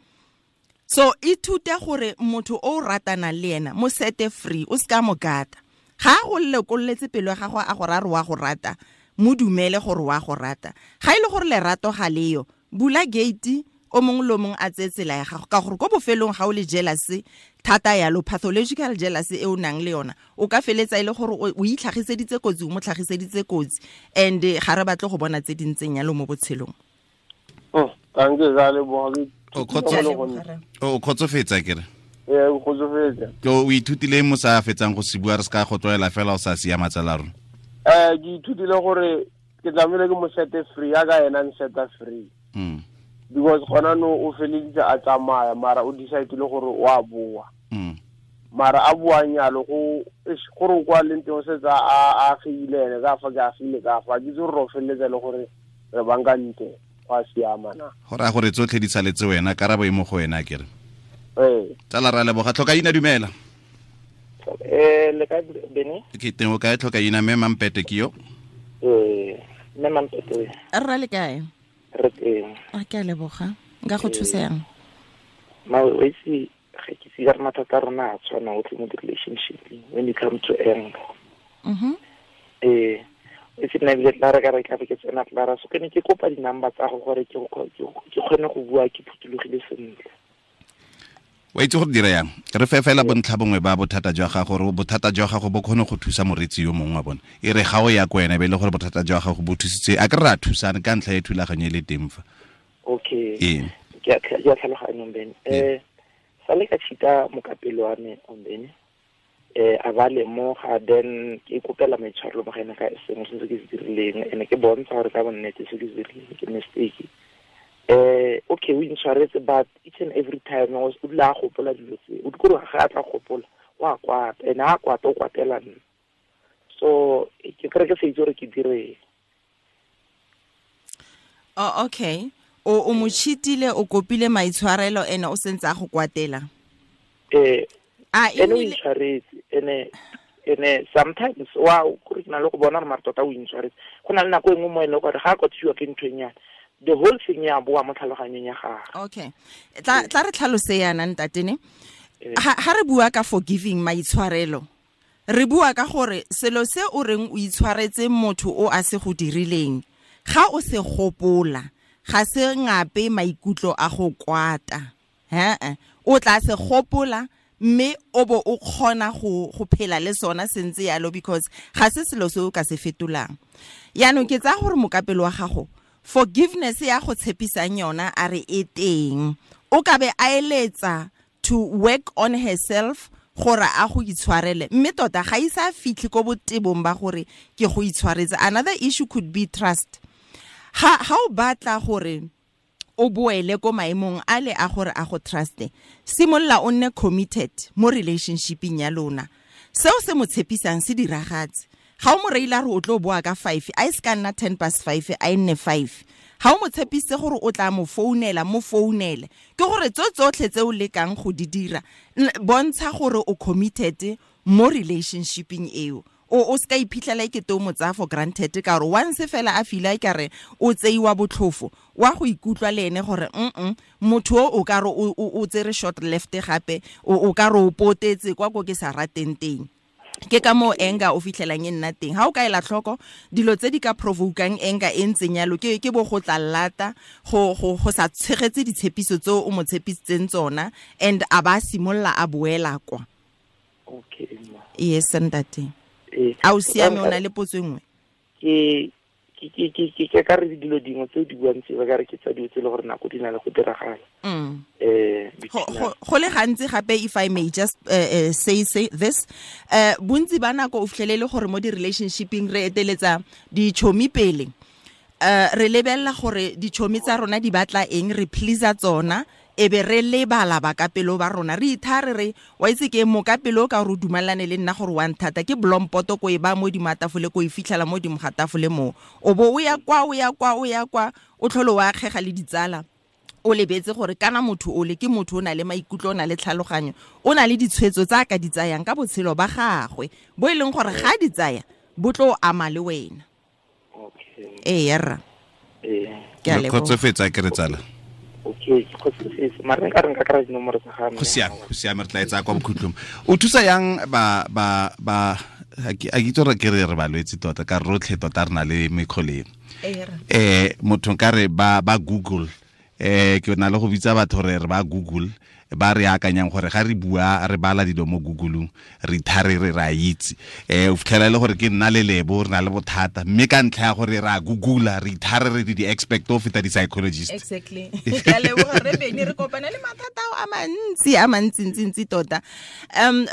So ithute gore motho o ratana le ena, mo sete free, o ska mo gata. Ga go lekolletse pelo ya gago a go ra re wa go rata, mo dumele gore wa go rata. Ga ile gore lerato ga leyo, bula gate, o mongwe le mongwe a tseye tsela ya gago, ka gore ko bofelong ga o le jealousy thata yalo, pathological jealousy e o nang le yona, o ka feletsa e le gore o itlhagiseditse kotsi, o mo tlhagiseditse kotsi, and ga re batle go bona tse di ntseng yalo mo botshelong. Thank you, ga leboga. O kgotsofetsa kere? Ee, o kgotsofetsa. Ke o ithutile mo sa fetsang go se bua, re se ka go tlwaela fela o sa siama tsala rona. Ke ithutile gore ke tlamehile ke mo sete free, ya ka ena nseta free. Because gona no o feleditse a tsamaya, mara o decide le gore o a boa. Mara a boang yalo go gore o kwa leng teng o setse a agile ene ka fa ke agile ka fa, ke itse gore o feleletsa le gore re bankantse go a siama na. Go raya gore tsotlhe di saletse wena, karabo e mo go wena kere. Ee. Tsala ra leboga. Tlhokaina, dumela. Le kae Bene? Ke teng, o kae Tlhokaina? Mme Mampete ke yo. Mme Mampete. Rra le kae? Re teng. A ke a leboga. Nka go thusa yang? Ma o itse ga ke se re mathata a rona a tshwana otlhe mo di-relationship when it comes to anger. E se nna ebile tla re ka re tla be ke tsena tlara, so ke ne ke kopa di-number tsa go gore ke kgone go bua ke phuthologile sentle. Wa itse gore dira yang, re fe fela bontlha bongwe ba bothata jwa gago, gore bothata jwa gago bo kgone go thusa moretsi yo mongwe wa bone. E re ga o ya ko wena, be e le gore bothata jwa gago bo thusitse, a ke re a thusane ka ntlha ya thulaganyo e le teng fa. Okay. Ee. Ke a tlhaloganya Mbene. Sa le ka cheata mokapelo wa me Mbene. A ba lemoga, then ke ikopela maitshwarelo mo go ene ka sengwe se ke se dirileng, ene ke bontsha gore ka bonnete se ke se dirileng ke mistake. Okay, o intshwaretse, but each and every time o dula a gopola dilo tse, o dikore ga a tla gopola wa kwata, ene a kwata o kwatela nna. So ke kry ke sa itse gore ke direng. Oh, okay. O mo cheatile, o kopile maitshwarelo, ene o sentse a go kwatela. Ene o intshwaretse, ene sometimes wa kore ke na le go bona gore mare tota o intshwaretse. Go na le nako e nngwe mo e leng gore ga a kwatisiwa ke ntho e nyane, the whole thing ya boa mo tlhaloganyong ya gagwe. Okay. Tla re tlhalose yana ntatene. Ha re bua ka forgiving, maitshwarelo, re bua ka gore selo se o reng o itshwaretse motho o a se go dirileng, ga o se gopola, ga se ngape maikutlo a go kwata. O tla se gopola mme o bo o kgona go phela le sona sentse yalo, because ga se selo se o ka se fetolang. Yaanong ke tsaya gore mokapelo wa gago, forgiveness ya go tshepisang yona a re e teng, o ka be a eletsa to work on herself gore a go itshwarele, mme tota ga isa fitlhe ko botebong ba gore ke go itshwaretse. Another issue could be trust. Ha o batla gore o boele ko maemong a le a gore a go truste, simolola o nne committed mo relationshipeng ya lona. Seo se mo tshepisang se diragatse. Ga o mo reile a re o tlo boa ka 5, a e se ka nna 5:10, a e nne 5. Ga o mo tshepise gore o tla mo founela, mo founele. Ke gore tso tsotlhe tse o lekang go di dira, bontsha gore o committed mo relationshipeng eo. O se ka iphitlhela e kete o mo tsaya for granted, ka gore once fela a fila e kare o tseiwa botlhofo, wa go ikutlwa le ene gore motho o ka re o tsere short left gape, o ka re o potetse kwa ko ke sa rateng teng. Ke ka moo anger o fitlhelang e nna teng. Ha o ka ela tlhoko dilo tse di ka provokang anger e ntseng yalo, ke bo go tla lata, go sa tshegetse ditshepiso tse o mo tshepisitseng tsona, and a ba simolola a boela kwa. Okay. Yes, ntate. A o siame, o na le potso e nngwe? Ke ka re dilo dingwe tse di buang tse ba ka re ke tsa dilo tse le gore nako di na le go diragala. Go le gantsi gape, if I may just say this, bontsi ba nako o fitlhelele gore mo di-relationshipeng re eteletsa ditšhomi pele. Re lebelela gore ditšhomi tsa rona di batla eng, re pleasa tsona, e be re lebala bakapelo ba rona. Re ithare re wa itse ke mokapelo ka gore o dumelane le nna gore wa nthata, ke blompoto ko e ba mo dimo ga tafole, ko e fitlhela mo dimo ga tafole mo. O bo o ya kwa, o ya kwa, o ya kwa, o tlhole wa akgega le ditsala, o lebetse gore kana motho o le ke motho o na le maikutlo, o na le tlhaloganyo, o na le ditshwetso tsa a ka di tsayang ka botshelo ba gagwe, bo e leng gore ga di tsaya bo tlo ama le wena. Okay. Ee, rra. Ke a leboga. Kgotsofetsa ke re tsala. Okay, ke kgotsofetse. Mara nka re nka kry-a dinomoro tsa ga mme. Go siame, re tla e tsaya kwa bokhutlong. O thusa yang ba a ke itse gore ke re balwetse tota, ka rotlhe tota re na le mekgoleng. Motho nka re ba Google, ke na le go bitsa batho re ba Google, ba re akanyang gore ga re bua re bala dilo mo Google-ong, re ithare re ra itse. O fitlhela e le gore ke nna le Lebo re na le bothata, mme ka ntlha ya gore re a Google-a, re ithare re di-expert o feta di-psychologist. Exactly. Ke a leboga re Bene, re kopana le mathata ao a mantsi, a mantsi-ntsi-ntsi tota.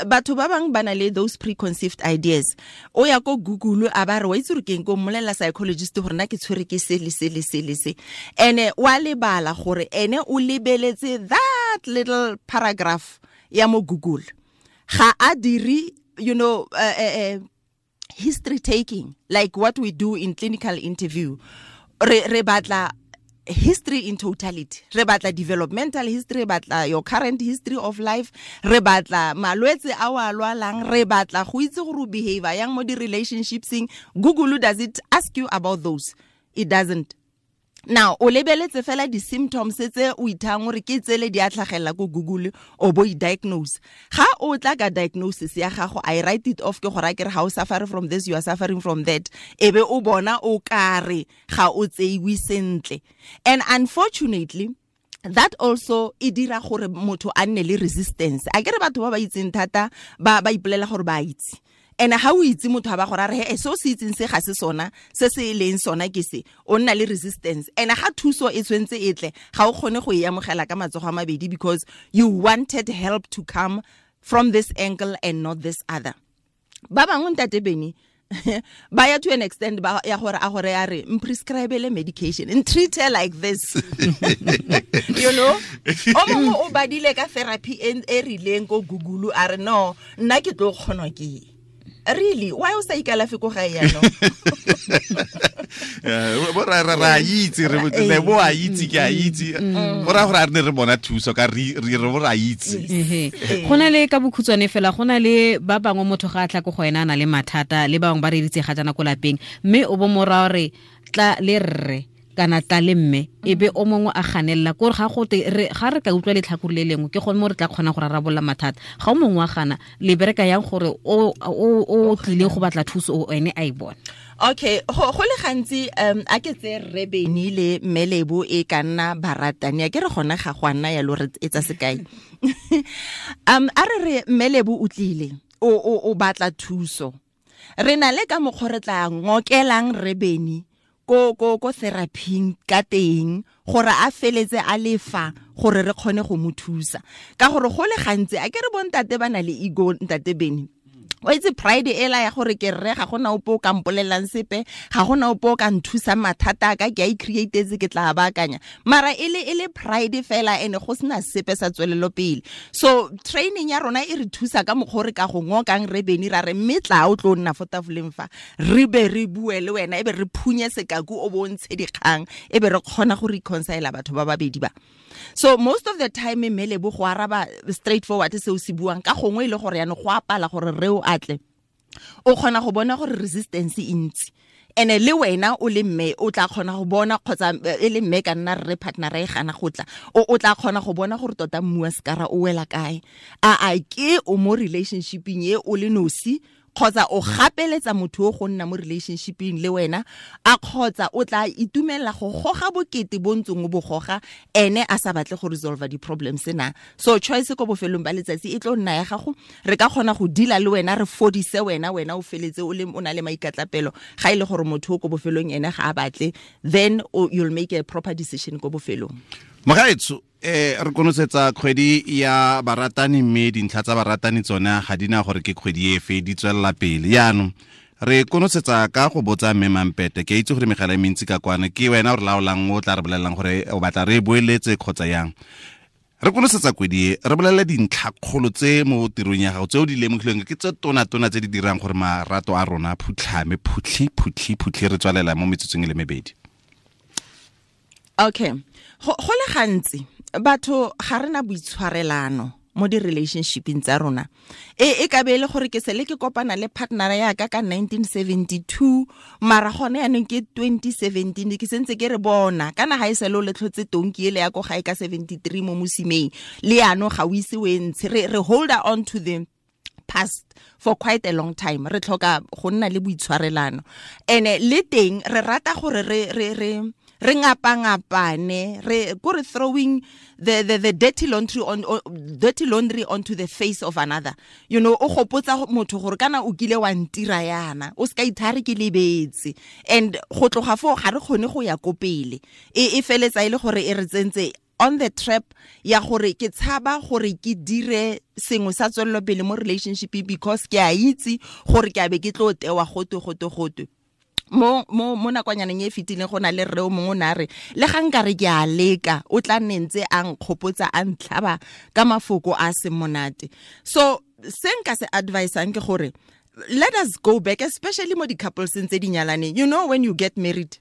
Batho ba bangwe ba na le those preconceived ideas. O ya ko Google a ba re wa itse gore ke eng, ko mmolelela psychologist gore nna ke tshwere ke se le se le se le se. Ene wa lebala gore ene o lebeletse that little paragraph ya mo Google. Ga a dire, you know, history taking like what we do in clinical interview. Re batla history in totality. Re batla developmental history, re batla your current history of life, re batla malwetse a o a lwalang, re batla go itse gore o behavior yang mo di-relationshipseng. Google does it ask you about those? It doesn't. Now, o lebeletse fela di-symptoms tse o ithang gore ke tsele di a tlhagelela ko Google, o bo i-diagnose. Ga o tla ka diagnosis ya gago, I write it off, ke gore a ke re ga o suffer from this, you are suffering from that. E be o bona o kare ga o tseiwe sentle. And unfortunately, that also e dira gore motho a nne le resistance. A ke re batho ba ba itseng thata ba ipolela gore ba itse. And ha o itse motho a ba gore a re he so se itseng se ga se sona, se se leng sona ke se, o nna le resistance. And ha thuso e tshwentse e tle, ga o kgone go e amogela ka matsogo a mabedi, because you wanted help to come from this angle and not this other. Ba bangwe ntate Bene, Ba ya to an extent ba ya gore a gore a re mprescribele medication and treat her like this. You know, o mongwe o badile ka therapy e rileng ko Google, a re no, nna ke tlo kgonwa ke. Really, why o sa ikalafe ko gae yaanong? Bo ra itse re le bo a itse ke a itse go ra gore a re ne re bona thuso ka re re bo ra itse. Go na le ka bokhutshwane fela, go na le ba bangwe motho ga a tla ko go ena a na le mathata, le bangwe ba re ditse ga jana ko lapeng, mme o bo mora gore tla le rre kana tla le mme, e be o mongwe a ganelela kore ga gote ga re ka utlwa letlhakore le lengwe ke gone mo re tla kgona go rarabolola mathata. Ga o mongwe wa gana, le bereka yang gore o tlile go batla thuso o ene a e bone? Okay, go le gantsi a ke tse rre Beni le mme Lebo e ka nna baratani, a ke re gona ga go a nna yalo, re etsa sekai. A re re mme Lebo o tlile o batla thuso, re na le ka mokgwa re tla ngokelang rre Beni ko therapying ka teng gore a feletse a lefa gore re kgone go mo thusa. Ka gore go le gantsi a ke re bontate ba na le ego, ntate Beni, o itse pride ela ya gore ke rre, ga gona ope o ka mpolelang sepe, ga gona ope o ka nthusang mathata a ka, ke a i-createtse, ke tla baakanya, mara e le pride fela, ene go sena sepe sa tswelelo pele. So training ya rona e re thusa ka mokgwa re ka go ngokang re Beni, ra re mme tla o tlo nna fo tafoleng fa, re be re bue le wena, e be re phunye sekaku o bontshe dikgang, e be re kgona go reconcile batho ba babedi ba. So most of the time mme Lebo go araba straightforward se o se buang, ka gongwe e le gore yana go apala gore re o atle, o kgona go bona gore resistance e ntsi, ene le wena o le mme o tla kgona go bona, kgotsa e le mme ka nna rre partner e gana go tla, o tla kgona go bona gore tota mmu wa sekara o wela kae, a ke o mo relationshipeng e o le nosi, kgotsa o gapeletsa motho o go nna mo relationshipeng le wena, a kgotsa o tla itumella go goga bokete bo ntseng o bo goga, ene a sa batle go resolve di-problems na. So choice ko bofelong ba letsatsi e tlo nna ya gago, re ka kgona go deala le wena, re fodise wena, wena o feletse o le o na le maikatlapelo. Ga e le gore motho o ko bofelong ene ga a batle, then you'll make a proper decision ko bofelong. Mogaetsho, re konosetsa kgwedi ya baratani, mme dintlha tsa baratani tsone ga di na gore ke kgwedi efe, di tswelela pele. Jaanong re konosetsa ka go botsa mme Mampete, ke itse gore megala e mentsi ka kwana, ke wena o re laolang, o tla re bolelelang gore o batla re boeletse kgotsa yang. Re konosetsa kgwedi e, re bolelele dintlhakgolo tse mo tirong ya gago tse o di lemogileng ke tse tona-tona tse di dirang gore marato a rona a phutlhame, phutlhi, phutlhi, phutlhi, re tswalela mo metsotsong e le mebedi. Okay, go le gantsi batho ga rena boitshwarelano mo di-relationshipeng tsa rona. E ka be e le gore ke sele ke kopana le partner ya ka ka 1972, mara gone yaanong ke 2017, ke sentse ke re bona kana ga e sele o le tlhotse tonki ele ya ko gae ka 73 mo mosimeng, le yaanong ga o ise o e ntshe. Re hold on to the past for quite a long time. Re tlhoka go nna le boitshwarelano, ene le teng re rata gore re re ngapangapane, re go re throwing the dirty laundry on dirty laundry onto the face of another. You know, o gopotsa motho gore kana o kile wa ntira yana, o ska ithare ke lebetse, and go tloga fo ga re kgone go ya ko pele. E feletsa ile gore e re tsentse on the trap ya gore ke tshaba gore ke dire sengwe sa tswelelo pele mo relationship, because ke a itse gore ke a be ke tlo tewa gotwe gotwe gotwe. Mo nakwanyaneng e fetileng go na le rre o mongwe o ne a re le ga nka re ke a leka, o tla nne ntse a nkgopotsa a ntlhaba ka mafoko a seng monate. So se nka se advisang ke gore let us go back, especially mo di-couples tse di nyalaneng. You know, when you get married,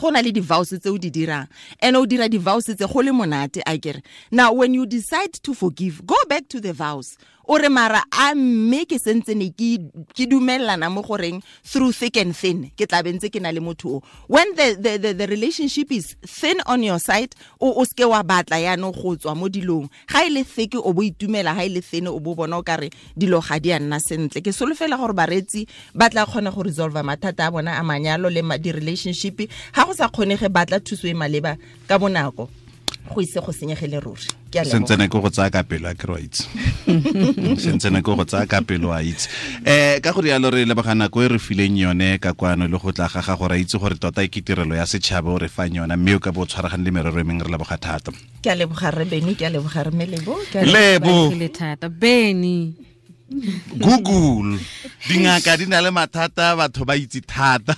go na le di-vows tse o di dirang, and o dira di-vows tse go le monate, a kere. Now when you decide to forgive, go back to the vows. O re mara a mme ke sentse ne ke dumellana mo goreng through thick and thin ke tla bentse ke na le motho o. When the relationship is thin on your side, o ske wa batla yaanong go tswa mo dilong. Ga e le thick o bo itumela, ga e le thin o bo bona o kare dilo ga di a nna sentle. Ke solofela gore bareetsi ba tla kgona go resolve mathata a bona a manyalo le di-relationship. Ga go sa kgonege, batla thuso e maleba ka bonako, go ise go senyegele ruri. Ke a leboga. Sentsene ke go tsaya ka pelo, a ke re wa itse. Sentsene ke go tsaya ka pelo, a itse. Ka go rialo re leboga nako e re fileng yone ka kwano le go tla ga gago, ra itse gore tota e ke tirelo ya setšhaba o re fang yona, mme o ka bo o tshwaragane le merero e mengwe, re leboga thata. Ke a leboga rre Beni, ke a leboga rre Lebo, ke a Lebo. Leboga thata Beni. Google dingaka di na le mathata, batho ba itse thata.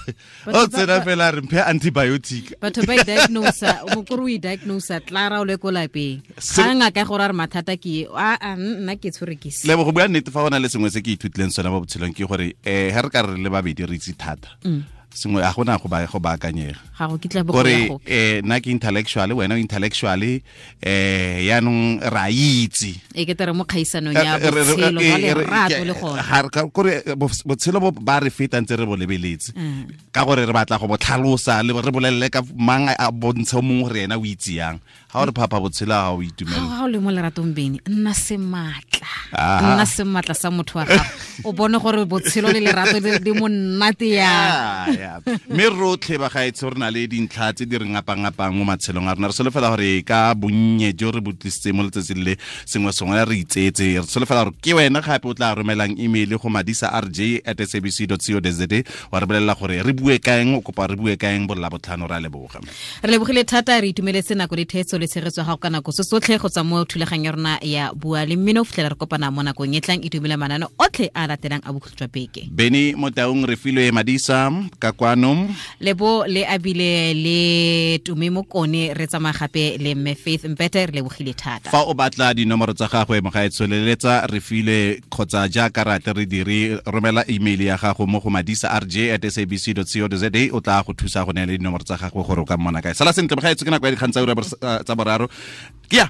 O tsena fela re mphe antibiotic. Batho ba i-diagnosa, mokoro o i-diagnosa tlara o le ko lapeng, ga ngaka gore a re mathata ke a nna ke tshwere ke se. Lebo, go bua nnete, fa go na le sengwe se ke ithutileng sone mo botshelong ke gore ga re ka re le babedi re itse thata sengwe, a gona go ba go baakanyega. Ga go kitla bo Gore go ya gope. Nna ke intellectual, wena o intellectual, yaanong re a itse. E ke tere mo kgaisanong ya botshelo jwa lerato le gone. Kore botshelo bo ba re feta ntse re bo lebeletse ka gore re batla go bo tlhalosa le re bolelele ka mang a bontshe o mongwe gore ena o itse yang. Ga o re phapha botshelo ga o itumela. Ga o le mo leratong, bene nna sematla, nna sematla sa motho wa gago, o bone gore botshelo le lerato di monate yang. Ya. Mme rotlhe ba gaetsho re na le dintlha tse di re ngapangapang mo matshelong a rona. Re solofela gore ka bonnye jo re bo tlisitse mo letsatsing le sengwe sengwe re itseetse. Re solofela gore ke wena gape o tla romelang email go madisa rj at sabc co za, wa re bolelela gore re bue kaeng, o kopa re bue kaeng bolla botlhano. Re a leboga. Re lebogile thata, re itumeletse nako le theetso le tshegetso ya gago ka nako se sotlhe go tswa mo thulaganyo ya rona ya Bua le Mmino. Fitlhela re kopana mo nakong e tlang, itumele manane otlhe a latelang a bokhutlo jwa beke. Beny Motaung, re filwe Madisa ka kwano. Lebo le abile le Tume Mokone, re tsamaya gape le mme Faith Mpete. Re lebogile thata. Fa o batla dinomoro tsa gagwe, mogaetsho, leletsa re file kgotsa jaaka rate re dire, romela email ya gago mo go madisa rj at sabc co za, o tla go thusa go neela dinomoro tsa gagwe gore o ka mmona kae. Sala sentle mogaetsho, ke nako ya dikgang tsa ura tsa boraro ke ya.